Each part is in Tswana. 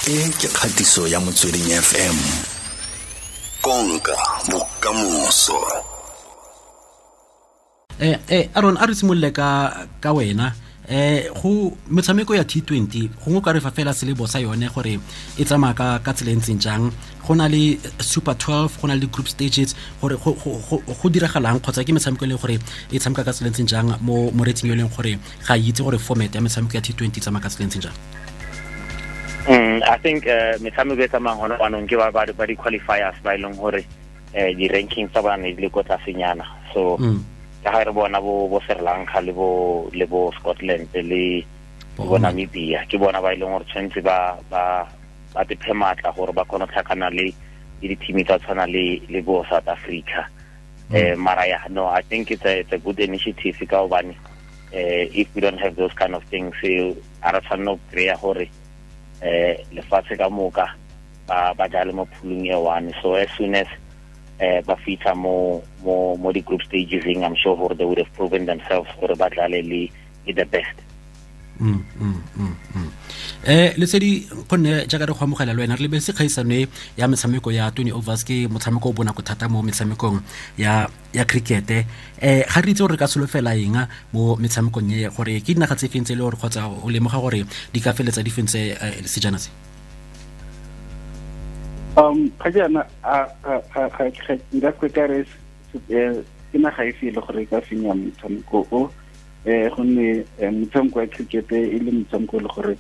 E ke kgatiso ya Motsweding FM. Konka bokamoso. Aaron, a re simolole ka wena. Go metshameko ya T20 gongwe ka re fa fela selebo sa yone gore e tsamaya ka tsela e ntseng jang, go na le Super 12, go na le group stages, gore go diragalang kgotsa ke metshameko e leng gore e tshameka ka tsela e ntseng jang mo moretsing yo e leng gore ga itse gore format ya metshameko ya T20 e tsamaya ka tsela e ntseng jang. I think metshameko e tsamayang gone jaanong ke ba di-qualifiers ba e leng gore di-rankings tsa bona ne di le ko tlasenyana. So ka ga re bona bo Sri Lanka le bo Scotland le bo Namibia, ke bona ba e leng gore tshwanetse ba tephe maatla gore ba kgone go tlhakana le di-team tsa tshwana le bo South Africa. Mara ya, no, I think it's a good initiative ka hobane if we don't have those kind of things, a re tshwanne go kry-a gore lefatshe ka moka ba jale mo phulung e one. So as soon as ba fitlha mo di group stages, I'm sure gore they would have proven themselves gore ba tlale le the best. Lesedi, gonne jaaka re go amogela le wena, re lebeletse kgaisano ya metshameko ya 20 overs, ke motshameko o bonako thata mo metshamekong ya cricket. Ga re itse gore re ka solofela eng mo metshamekong e, gore ke dinaga tse feng tse e le gore kgotsa o lemoga gore di ka feletsa di fentse sejana se? Ga jaana nka se ka re ke naga e fe e le gore e ka fenya motshameko o, gonne motshameko wa cricket e le motshameko e le gore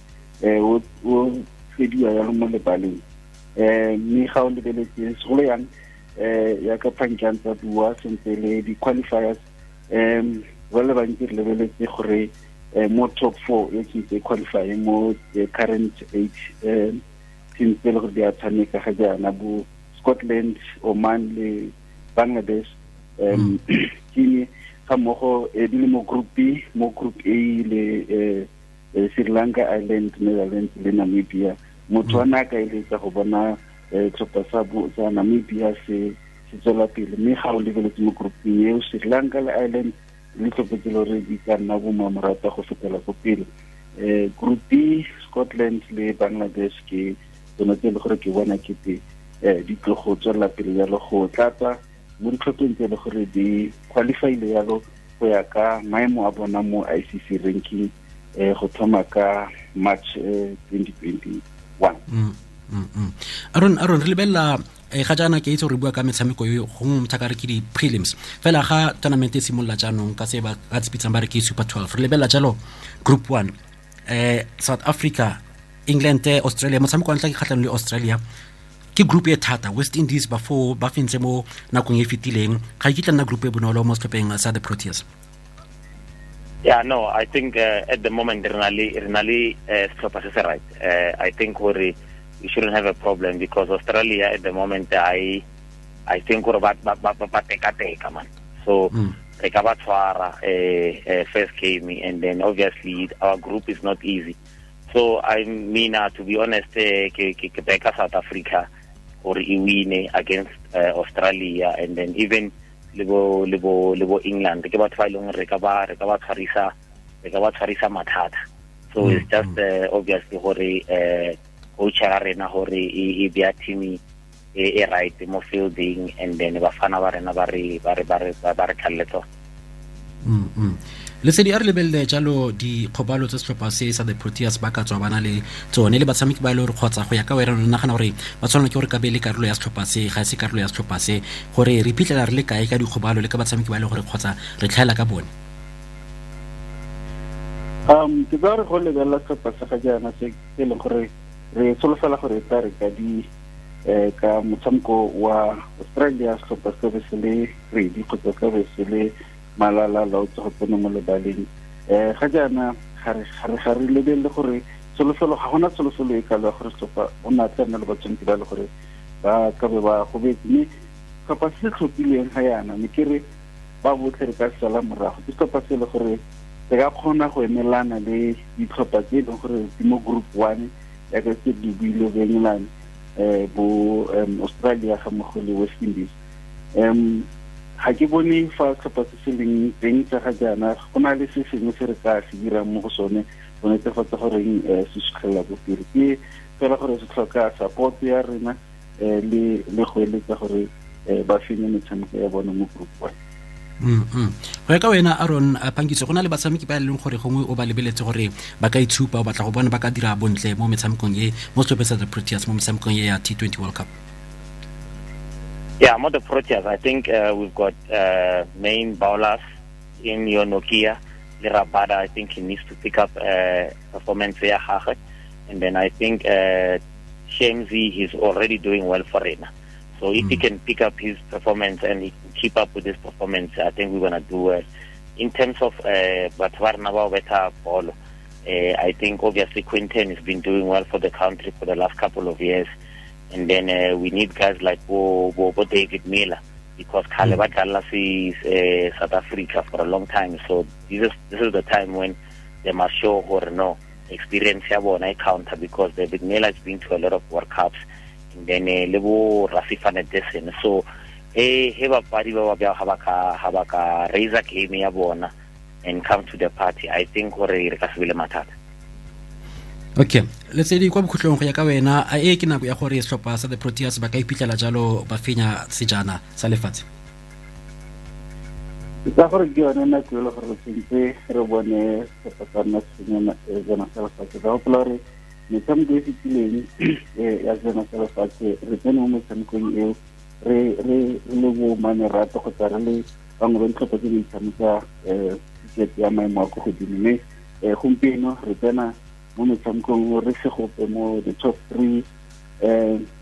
o fediwa yalo mo lebaleng. Mme ga o lebeletse segolo yang ya ka Phankang tsa bua sentle le di-qualifiers, ba le bantsi re lebeletse gore mo top 4 e ke qualify mo current 8 teams tse le gore di a tshameka ga jaana, bo Scotland, Oman le Bangladesh, team ga mmogo di le mo group B, mo group A le Sri Lanka, Ireland, Netherlands le Namibia. Motho wa na ka eletsa go bona tlhopha sa Namibia se tswela pele, mme ga o lebeletse mo grouping eo Sri Lanka le Ireland le tlhopha tse le gore di ka nna bo mamorata go fetela ko pele. Group B, Scotland le Bangladesh ke tsone tse e le gore ke bona kete di tlo go tswelela pele jalo go tlatsa mo ditlhopheng tse e le gore di qualifyile jalo go ya ka maemo a bona mo ICC ranking go thoma ka March 2021. Aaron, re lebelela ga jaana ke itse gore bua ka metshameko yo gongwe motho a ka re ke di-prelims fela ga tournament e simolola jaanong ka se ba ka tsipitsang ba re ke Super 12, re lebelela jalo group 1, South Africa, England, Australia. Motshameko wa ntlha ke kgatlhanong le Australia, ke group e thata. West Indies ba fo ba fentse mo nakong e fetileng, ga e kitla nna group e bonolo mo setlhopheng sa the Proteas. Yeah, no, I think at the moment re na le setlhopha se se right. I think gore we shouldn't have a problem because Australia at the moment I think gore ba teka man. So re ka ba tshwara first game, and then obviously our group is not easy. So I mean, to be honest, ke beka South Africa gore e win against Australia, and then even le bo England ke batho ba e leng re ka ba tshwarisa mathata. So it's just obviously gore coach ya rena gore e bea team e right mo fielding, and then bafana ba rena ba re tlhalle tsona. Lesedi, a re lebelele jalo dikgobalo tse setlhopha se sa the Proteas ba ka tswa ba na le tsone le batshameki ba e le gore kgotsa go ya ka wena o nagana gore ba tshwanela ke gore ka be le karolo ya setlhopha se, ga e se karolo ya setlhopha se, gore re iphitlhela re le kae ka dikgobalo le ka batshameki ba e le gore kgotsa re tlhaela ka bone? Ke tsa gore go lebelela setlhopha sa ga jaana se e leng gore re solofela gore e tla re ka di ka motshameko wa Australia setlhopha se be se le ready kgotsa se be se le malala laotse go tsena mo lebaleng. Ga jaana ga re lebelele gore tsholofelo, ga gona tsholofelo e kalo ya gore setlhopha o ne a tla nna le batshameki ba le gore ba ka be ba gobetse, mme setlhopha se se tlhophilweng ga jaana ne ke re ba botlhe re ka sala morago. Ke setlhopha se e le gore se ka kgona go emelana le ditlhopha tse e leng gore di mo group 1 yaka se di buile bo England, bo Australia ga mmogo le West Indies. Ga ke bone fa setlhopha se se leng teng tsa ga jaana go na le se sengwe se re ka se dirang mo go sone Go netefatsa goreng se sutlhelela ko pele ke fela gore se tlhoka support ya rena le go eletsa gore ba fenye metshameko ya bone mo group one. Go ya ka wena Aaron Phangiso, go na le batshameki ba e leng gore gongwe o ba lebeletse gore ba ka itshupa, o batla go bona ba ka dira bontle mo metshamekong e mo setlhopheng sa the Proteas mo metshamekong e ya T20 World Cup? Yeah, mo the Proteas, I think we've got main bowlers in your Nokia, le Rabada. I think he needs to pick up performance ya gagwe. And then I think Shamsi, he's already doing well for rena. So if he can pick up his performance and he can keep up with his performance, I think we're going to do well. In terms of batho ba rena ba betha bolo, I think obviously Quinton has been doing well for the country for the last couple of years. And then we need guys like Bo David Miller, because khale ba dlala South Africa for a long time. So this is the time when they must show or no experience ya bona e counter, because David Miller has been to a lot of World Cups. And then lebo Rassie van der Dussen. So he bapadi ba ba ha ba ka raise a game ya bona and come to the party, I think gore re ka se bile mathata. Okay, Lesedi, kwa bokhutlong go ya ka wena, a e ke nako ya gore setlhopha sa the Proteas ba ka iphitlhela jalo ba fenya sejana sa lefatshe? Ke tsa gore ke yone nako e le gore tshwanetse re bone setlhopha sa rona se fenya sejana sa lefatshe. Ka gopola gore metshameko e fetileng ya sejana sa lefatshe re tsene mo metshamekong eo re le bo manerato kgotsa re le bangwe ba ditlhopha tse di tshameka cricket ya maemo a ko godimo, mme gompieno re tsena mo metshamekong re se gope mo the top 3,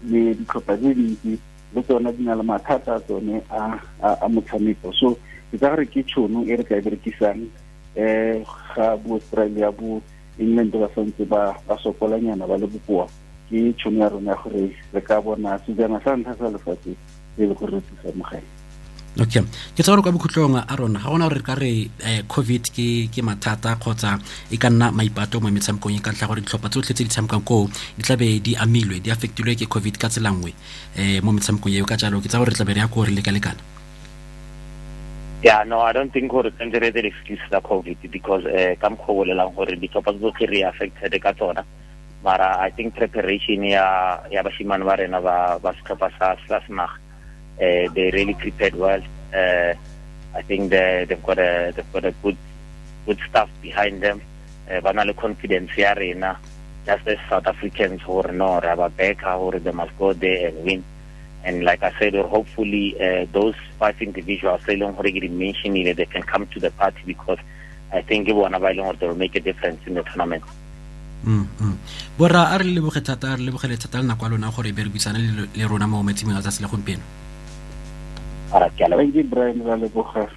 le ditlhopha tse dintsi le tsona di na le mathata a tsone a motshameko. So ke tsa gore ke tšhono e re ka e berekisang ga bo Australia bo England ba santse ba sokolanyana ba le bokoa, ke tšhono ya rona gore re ka bona sejana sa ntlha sa lefatshe e le gore re thusa mo gae. Okay, ke tsa gore kwa bokhutlong a rona ga gona gore re ka re COVID ke mathata kgotsa e ka nna maipato mo metshamekong e ka ntlha gore ditlhopha tsotlhe tse di tshamekang koo di tlabe di amilwe, di affectilwe ke COVID ka tsela nngwe mo metshamekong eo. Ka jalo ke tsa gore re tlabe re ya ko re lekalekana. Yeah, no, I don't think gore tshwanetse re etse excuse tsa COVID, because ka mokgwa o bolelang gore ditlhopha tsotlhe re affected ka tsona. Mara I think preparation ya bashimane ba rena ba setlhopha sa senaga, they really prepared well. I think they've got a good staff behind them. Ba na le confidence ya rena just as South Africans gore no re ba backa gore they must go there and win. And like I said, hopefully those 5 individuals e leng gore ke di mentionile, they can come to the party, because I think ke bona ba e leng gore they will make a difference in the tournament. Borra, a re lebogele thata le nako ya lona gore be re buisane le rona mo metsimeng a tsatsi la gompieno. Thank you, Brian. Ra leboga.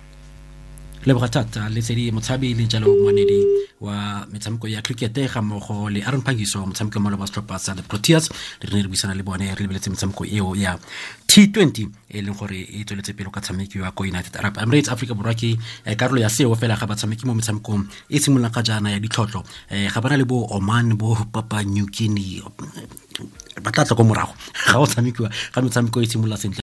Leboga thata Lesedi Motshabi le jalo moanedi wa metshameko ya cricket ga mmogo le Aaron Phangiso, motshameko mo ba setlhopha sa the Proteas. Re ne re buisana le bone re lebeletse metshameko eo ya T20 e leng gore e tsweletse pele ka tshamekiwa ko United Arab Emirates. Africa Borwa ke karolo ya seo fela ga batshameki mo metshamekong e simololang ga jaana ya ditlhotlho. Ga bana le bo Oman, bo Papua New Guinea, ba tla tla ko morago ga o tshamekiwa ga metshameko e simolola sentle.